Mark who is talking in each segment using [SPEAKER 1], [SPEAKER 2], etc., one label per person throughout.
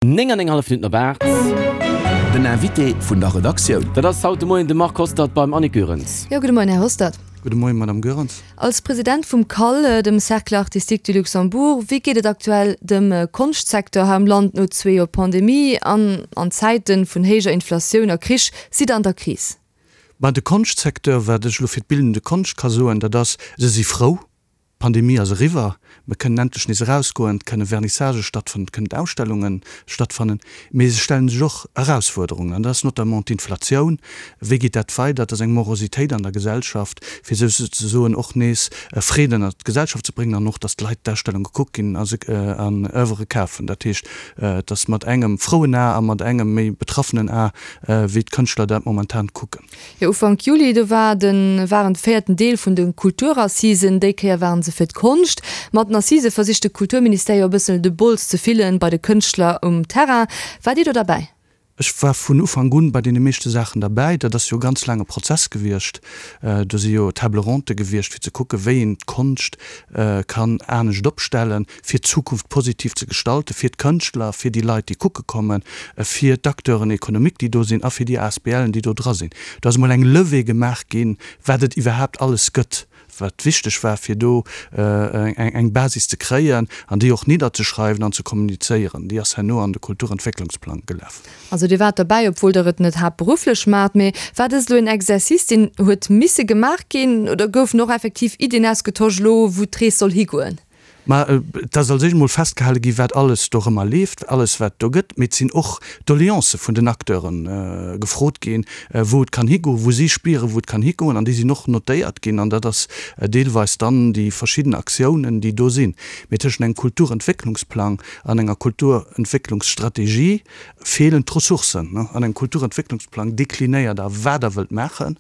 [SPEAKER 1] 9 an eng hallef Minutten op 8.
[SPEAKER 2] Den Invité vun der Redaktioun.
[SPEAKER 1] Dat ass haut de Moien de Marc Hostert beim Annick Goerens.
[SPEAKER 3] Jo, gudde Moien, Här Hostert.
[SPEAKER 4] Gudde Moien, Madame Goerens.
[SPEAKER 3] Als President vum CAL, dem Cercle Artistique du Luxembourg, wéi geet et aktuell dem Konschtsecteur hei am Land no zwee Joer Pandemie an an Zäite vun héijer Inflatioun a Krich? Sidd Der an der Kris?
[SPEAKER 4] Ben, de Konschtsecteur, wat ech elo fir d'bildende Konscht ka soen, dat ass, se si frou, D'Pandemie ass eriwwer, mer kënnen endlech nees erausgoen, et kënne Vernissagë stattfannen, et kënnen Ausstellunge stattfannen, mee se stellen sech och Erausfuerderungen, an dat ass notamment d'Inflatioun. Wéi geet dat weider? Et ass eng Morositéit an der Gesellschaft, fir souzesoen och nees Freed ënnert d'Gesellschaft ze bréngen an och, datt d'Leit d'Ausstellunge kucke ginn a se an Oeuvre kafen. Dat heescht, et ass mat engem frouen A a mat engem méi betraffenen A, wéi d'Kënschtler dat momentan kucken.
[SPEAKER 3] Jo, Ufank Juli, do war de waren de véierten Deel vun de Kulturassisen. Déi Kéier waren se fir d'Konscht. Mat den Assisë versicht de Kulturministère jo e bëssen de Bols ze fillen bei de Kënschtler um Terrain. Waart Dir do derbäi?
[SPEAKER 4] Ech war vun Ufank un bei deene meeschte Saachen derbäi. Dat ass jo e ganz laange Prozess gewiescht. Do si jo Table ronde gewiescht, fir ze kucken, wéi een d'Konscht kann anescht opstellen. fir d'Zukunft positiv ze gestalten, fir d'Kënschtler, fir déi Leit, déi kucke kommen, fir d'Acteuren économiques, déi do sinn, a fir déi ASBLen, déi do dra sinn. Do ass emol eng Levée gemaach ginn, wat et iwwerhaapt alles gëtt, wat wichteg war, fir do eng Basis ze kréien an déi och nidderzeschreiwen an ze kommunizéieren. Déi ass herno an de Kulturentwécklungsplang gelaf.
[SPEAKER 3] Also Dir waart derbäi, obwuel Der et net haaptberufflech maacht. Mee war dëst elo en Exercice, deen huet misse gemaach ginn, oder goufen och effektiv Iddien ausgetosch elo, wou d'Rees soll higoen?
[SPEAKER 4] Mä et ass als éischt emol festgehale gi wat alles dorëmmer leeft, alles wat do gëtt. Mee et sinn och Doleancë vun den Acteure gefrot ginn, wou et kann higoen, wou si spieren, wou et kann higoen. An déi sinn och notéiert ginn. An dat ass deelweis dann déi verschidden Aktiounen, déi do sinn. Mee tëschent engem Kulturentwécklungsplang an enger Kulturentwécklungsstrategie feelen d'Ressourcen. An engem Kulturentwécklungsplang deklinéiert Der, wat Der wëllt maachen.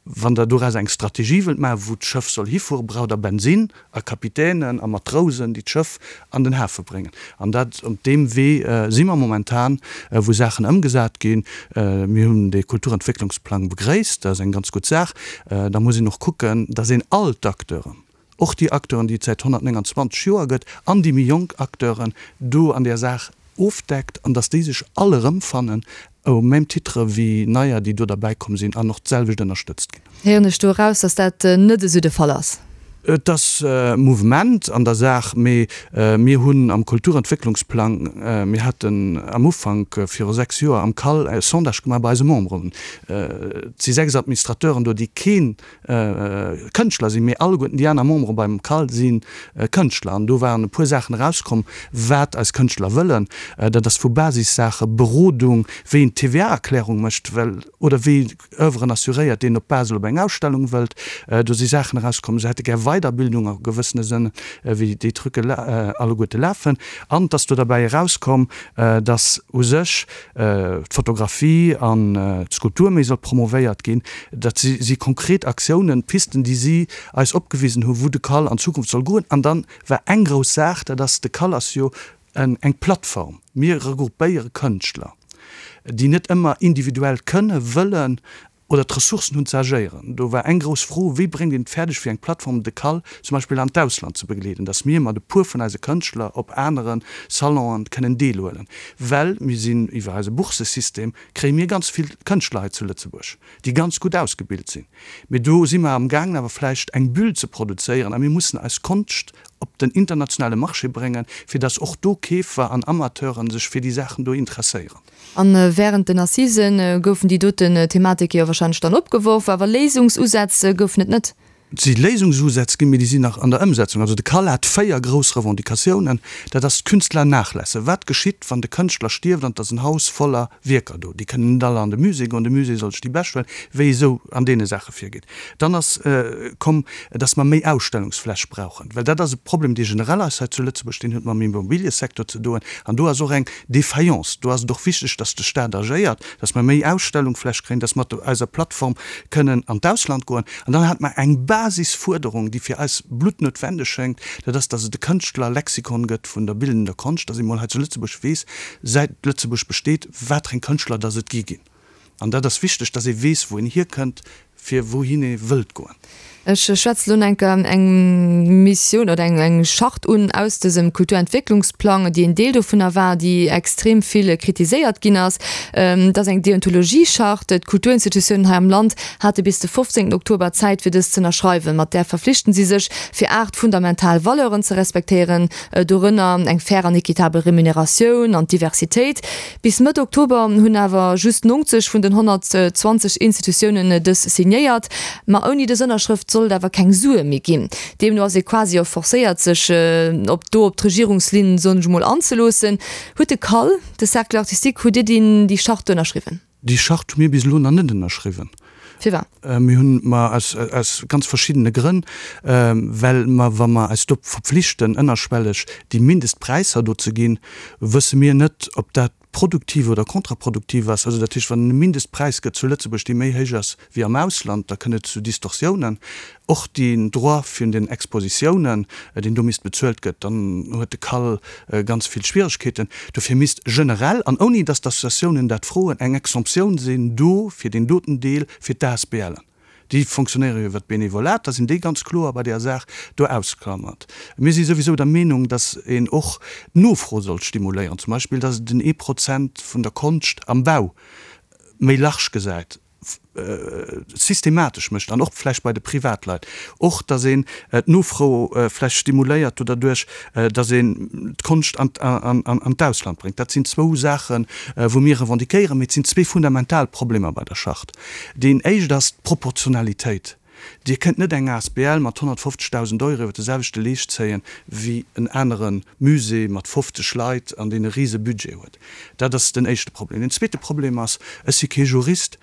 [SPEAKER 4] Wann Der doraus eng Strategie wëllt maachen, wou d'Schëff soll hifueren, braucht Der Bensinn a Kapitänen a Matrousen, déi d'Schëff an den Hafe bréngen. An dat, op deem Wee si mer momentan, wou Saachen ëmgesat ginn. Mir hunn dee Kulturentwécklungsplang begréisst, dat ass eng ganz gutt Saach. Da muss een och kucken, dass een all d'Acteuren, och déi Acteuren, déi et säit 129 Joer gëtt, an déi méi jonk Acteuren do an där Saach ofdeckt an dass déi sech all erëmfannen au même titre wéi neier, déi do derbäi komm sinn an och d'selwecht ënnerstëtzt ginn.
[SPEAKER 3] Héieren ech do eraus, dass dat net esou de Fall ass?
[SPEAKER 4] Et ass Mouvement an der Saach, mee mir hunn am Kulturentwécklungsplang, mir haten am Ufank viru 6 Joer am CAL e Sondage gemaach bei eise Memberen, et si 6 Administrateuren do, déi keen Kënschtler sinn, mee alleguerten déi aner Membere beim CAL si Kënschtler. An do waren e puer Saachen erauskomm, wat eis Kënschtler wëllen. Dat ass vu Basissaache, Berodung, wéi een d'TVA-Erklärung mécht, well, oder wéi Oeuvren assuréiert, deen op Basel op eng Ausstellung wëllt. Do si Saachen erauskomm, se hätte gär Weiderbildung a gewëssene Sënn, wéi déi Trucke alleguerte lafen. An et ass do derbäi erauskomm, dass u sech d'Fotografie an d'Skulptur méi soll promovéiert ginn. Dat si konkret Aktiounen, Pisten, déi si eis opgewisen hunn, wou de CAL an Zukunft soll goen. An dann war eng grouss Saach, dat ass, de CAL ass jo eng Plattform. Mir regroupéiere Kënschtler, déi net ëmmer individuell kënne, wëllen oder d'Ressourcen hunn ze agéieren. Do war eng grouss Fro, Wéi bréngt een et fäerdeg fir eng Plattform de CAL zum Beispill an d'Ausland ze begleeden, datt mir mat e puer vun eise Kënschtler op anere Salonen kënnen deelhuelen? Well mir sinn iwwer eise Bourssesystem kréie mir ganz vill Kënschtler hei zu Lëtzebuerg, déi ganz gutt ausgebilt sinn. Mee do si mer amgaangen awer vläicht eng Bulle ze produzéieren a mir mussen eis Konscht op den internationale Marché bréngen, fir datt och do Keefer an Amateuren sech fir déi Saachen do interesséieren.
[SPEAKER 3] A wärend den Assisen goufen déi doten Thematike jo warscheinlech dann opgeworf, awer Léisungsusätz goufen et net.
[SPEAKER 4] Et si Léisungsusätz ginn, mee déi sinn nach an der Ëmsetzung. Also de CAL hat 4 grouss Revendicatiounen. Dat ass d'Künstler-Nachlässe. Wat geschitt, wann de Kënschtler stierft an et ass en Haus voller Wierker do? Déi kënnen net alle an de Musée goen, de Musée soll sech déi bescht huelen, wéi esou an deene Saache virgeet. Dann ass komm, dass mer méi Ausstellungsfläch brauchen, well dat ass e Problem, dee generell ass hei zu Lëtzebuerg, deen huet mam Immobiliësecteur ze doen an do ass och eng Défaillance. Do ass et och wichteg, dass de Stat agéiert, dass mer méi Ausstellungfläch kréien, dass mer mat eiser Plattform kënnen an d'Ausland goen. An dann hate mer eng Basisfuerderung, déi fir eis bluttnoutwendeg schéngt, dat ass, dass et e Kënschtlerlexikon gëtt vun der bildender Konscht, dass ee mol hei zu Lëtzebuerg weess, säit Lëtzebuerg besteet, watereng Kënschtler dass et gi ginn. An dat ass wichteg, dass ee weess, wou een hierkënnt, fir wouhin ee wëllt goen.
[SPEAKER 3] Ech schwätze lo enker eng Missioun oder eng eng Charte un aus dësem Kulturentwécklungsplang, déi en Deel dovunner war, déi extrem vill kritiséiert ginn ass. Dat ass eng Deontologie-Charte. D'Kulturinstitutiounen hei am Land hate bis de 15 Oktober Zäit, fir dës z'ënnerschreiwen. Mat där verflichten si sech, fir 8 fundamental Valeuren ze respektéieren, dorënner eng fair an equitabel Remuneratioun an d'Diversitéit. Bis Mëtt Oktober hunn awer just 90 vun den 120 Institutiounen dës signéiert. Ma ouni dës Ënnerschrëft soll et awer keng Sue méi ginn. Deemno ass ee quasi och forcéiert, sech op do op d'Regierungslinn, soen ech emol, anzeloossen. Huet de CAL, de Cercle artistique, hutt Dir déi déi Charte ënnerschriwwen?
[SPEAKER 4] Déi Charte hu mir bis elo nach net ënnerschriwwen.
[SPEAKER 3] Firwat?
[SPEAKER 4] Mir hunn, ma aus, aus ganz verschiddene Grënn, well mer, wa mer eis do verpflichten, ënnerschwelleg déi Mindestpräisser do ze ginn, wësse mir net, ob dat produktiv oder kontraproduktiv ass. Also dat heescht, wann et e Mindestpräis gëtt zu Lëtzebuerg, dee méi héich ass wéi am Ausland, da kënnt et zu Distorsiounen. Och den Droit vun den Expositiounen, deen do misst bezuelt gëtt, dann huet de CAL ganz vill Schwieregkeeten. Dofir misst generell, an ouni datt d'Associatiounen dat froen, eng Exemptioun sinn do fir deen doten Deel fir d'ASBLen. Déi fonctionnéiere jo iwwer d'Benevolat, da sinn déi ganz kloer bei där Saach do ausklammert. Mir si souwisou der Meenung, datt een och d'Nofro sollt stimuléieren, zum Beispill datt et den ee Prozent vun der Konscht am Bau méi large gesäit. systematesch mécht an och vläicht bei de Privatleit och, datt een d'Nofro vläicht stimuléiert do derduerch, datt een d'Konscht an d'Ausland bréngt. Dat sinn zwou Saachen, wou mir revendiquéieren, mee et sinn zwee fundamental Problemer bei der Charte. Deen éischt ass d'Proportionalitéit. Dir kënnt net eng asbl mat 150.000 Euro iwwer de selwechte Leescht zéien, wéi en anere Musée mat 50 Leit an deen e rise Budget huet. Dat ass den éischte Problem. Den zweete Problem ass, ech si kee Jurist,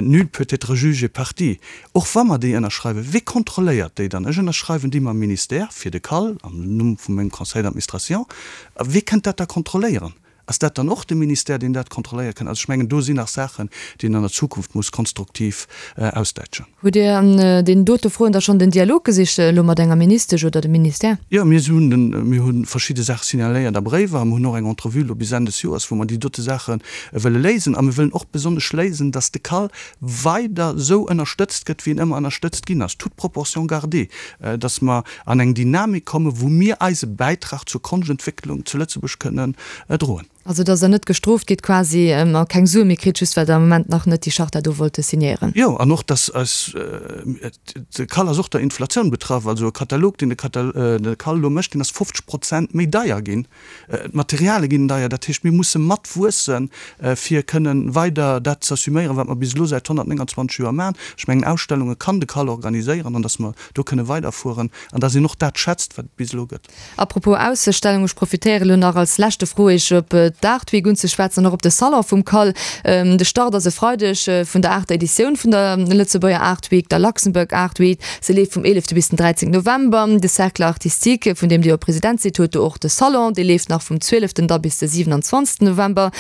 [SPEAKER 4] nul peut être juge et partie. Och wa mer déi ënnerschreiwen, wee kontrolléiert déi dann? Ech ënnerschreiwen déi mam Ministère fir de CAL, am Numm vu mengem Conseil d'administration. A wee kënnt dat da kontrolléieren? Ass dat dann och de Ministère, deen dat kontrolléiere kënnt? Also ech mengen, do sinn nach Saachen, déi een an der Zukunft muss konstruktiv ausdäitschen.
[SPEAKER 3] Hutt Dir an deenen dote Froen da schonn den Dialog gesicht, elo mat enger Ministesch oder dem Ministère?
[SPEAKER 4] Jo, mir hunn den, mir hu verschidde Saache signaléiert a Bréiwer a mir hunn och eng Entrevue elo bis Enn des Joers, wou mer déi dote Saache wëlle léisen. A mir wëllen och besonnesch léisen, dass de CAL weider esou ënnerstëtzt gëtt, wéi en ëmmer ënnerstëtzt ginn ass, toute proportion gardée, dass mer an eng Dynamik kommen, wou mir eise Bäitrag zur Konschtentwécklung zu Lëtzebuerg kënnen droen.
[SPEAKER 3] Also dass Der net gestrooft gitt quasi a keng Sue méi kritt, just well Der am Moment nach net déi Charta do wollte signéieren.
[SPEAKER 4] Jo, an och dass eis, de CAL ass och der Inflatioun betraff, also e Katalog, deen de CAL elo mécht, deen ass 50 Prozent méi deier ginn. D'Materiale ginn deier, dat heescht, mir musse mat wuessen, fir kënnen weider dat z'assuméieren, wat mer bis elo säit 129 Joer maachen. Ech mengen, Ausstellunge kann de CAL organiséieren an dass mer do kënne weiderfueren an dass een och dat schätzt, wat et bis elo gëtt.
[SPEAKER 3] A propos Ausstellung, ech profitéiere lo nach als leschte Fro, Iech op d'Art Week unzeschwätzen an och op de Salon vum CAL. De Start ass e Freideg vun der aachter Editioun vun der Lëtzebuerger Art Week, der Luxembourg Art Week. Se leeft vum 11 bis den 13 November. De Cercle Artistique, vun deem Dir jo President sidd, huet do och de Salon. Dee leeft nach vum 12 da bis de 27 November.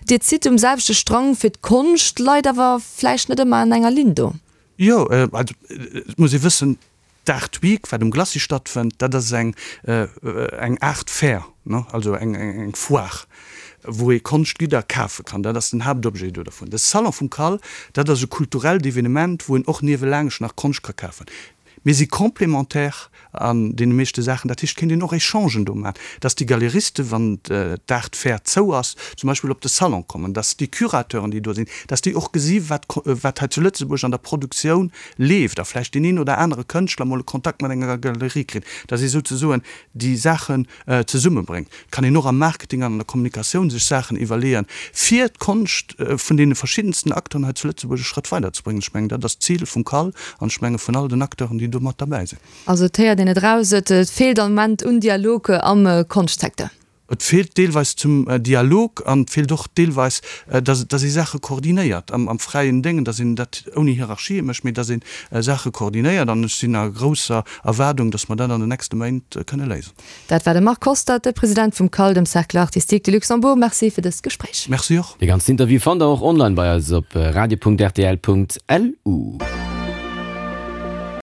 [SPEAKER 3] Dir zitt um selwechte Strang fir d'Konscht, leit awer vläicht net ëmmer an enger Linn do.
[SPEAKER 4] Jo, also et muss ee wëssen, d'Art Week, wat um Glacis stattfënnt, dat ass eng eng Art Fair, ne, also eng eng Foire, wou ee Konschtgidder kafe kann. Dat ass den Haaptobjet do dervun. De Salon vum CAL, dat ass e kulturellt Evenement, wou een och niewelaangscht nach Konscht ka kafen. Mir si complémentaire an deene meeschte Saachen. Dat heescht, et kéint een och Echangen do maachen, dass déi Galeristen, wann d'Art Fair zou ass, zum Beispill op de Salon kommen, dass déi Curateuren, déi do sinn, dass déi och gesi wat wat hei zu Lëtzebuerg an der Produktioun leeft a vläicht deen een oder anere Kënschtler mol e Kontakt mat enger Galerie kritt, dass ee souzesoen déi Saachen zesummebréngt. Et kann een och am Marketing an an der Kommunikatioun sech Saachen iwwerleeën, fir d'Konscht vun deene verschiddensten Acteuren hei zu Lëtzebuerg e Schrëtt weiderzebréngen. Ech mengen, dat ass d'Zil vum CAL an ech menge vun all den Acteuren, déi do mat derbäi sinn.
[SPEAKER 3] Also et héiert een et eraus, et feelt am Moment un Dialog am Konschtsecteur.
[SPEAKER 4] Et feelt deelweis zum Dialog an et feelt och deelweis, dass dass ee Saache koordinéiert am fräien Déngen, dass een dat ouni Hierarchië mécht, mee dass ee Saache koordinéiert. An ech sinn a grousser Erwaardung, dass mer dat an den nächste Méint kënne léisen.
[SPEAKER 3] Dat war de Marc Hostert, de President vum CAL, dem Cercle Artistique de Luxembourg. Merci fir dëst Gespréich.
[SPEAKER 4] Merci och.
[SPEAKER 1] De ganzen Interview fannt der och online bei eis op radio.rtl.lu.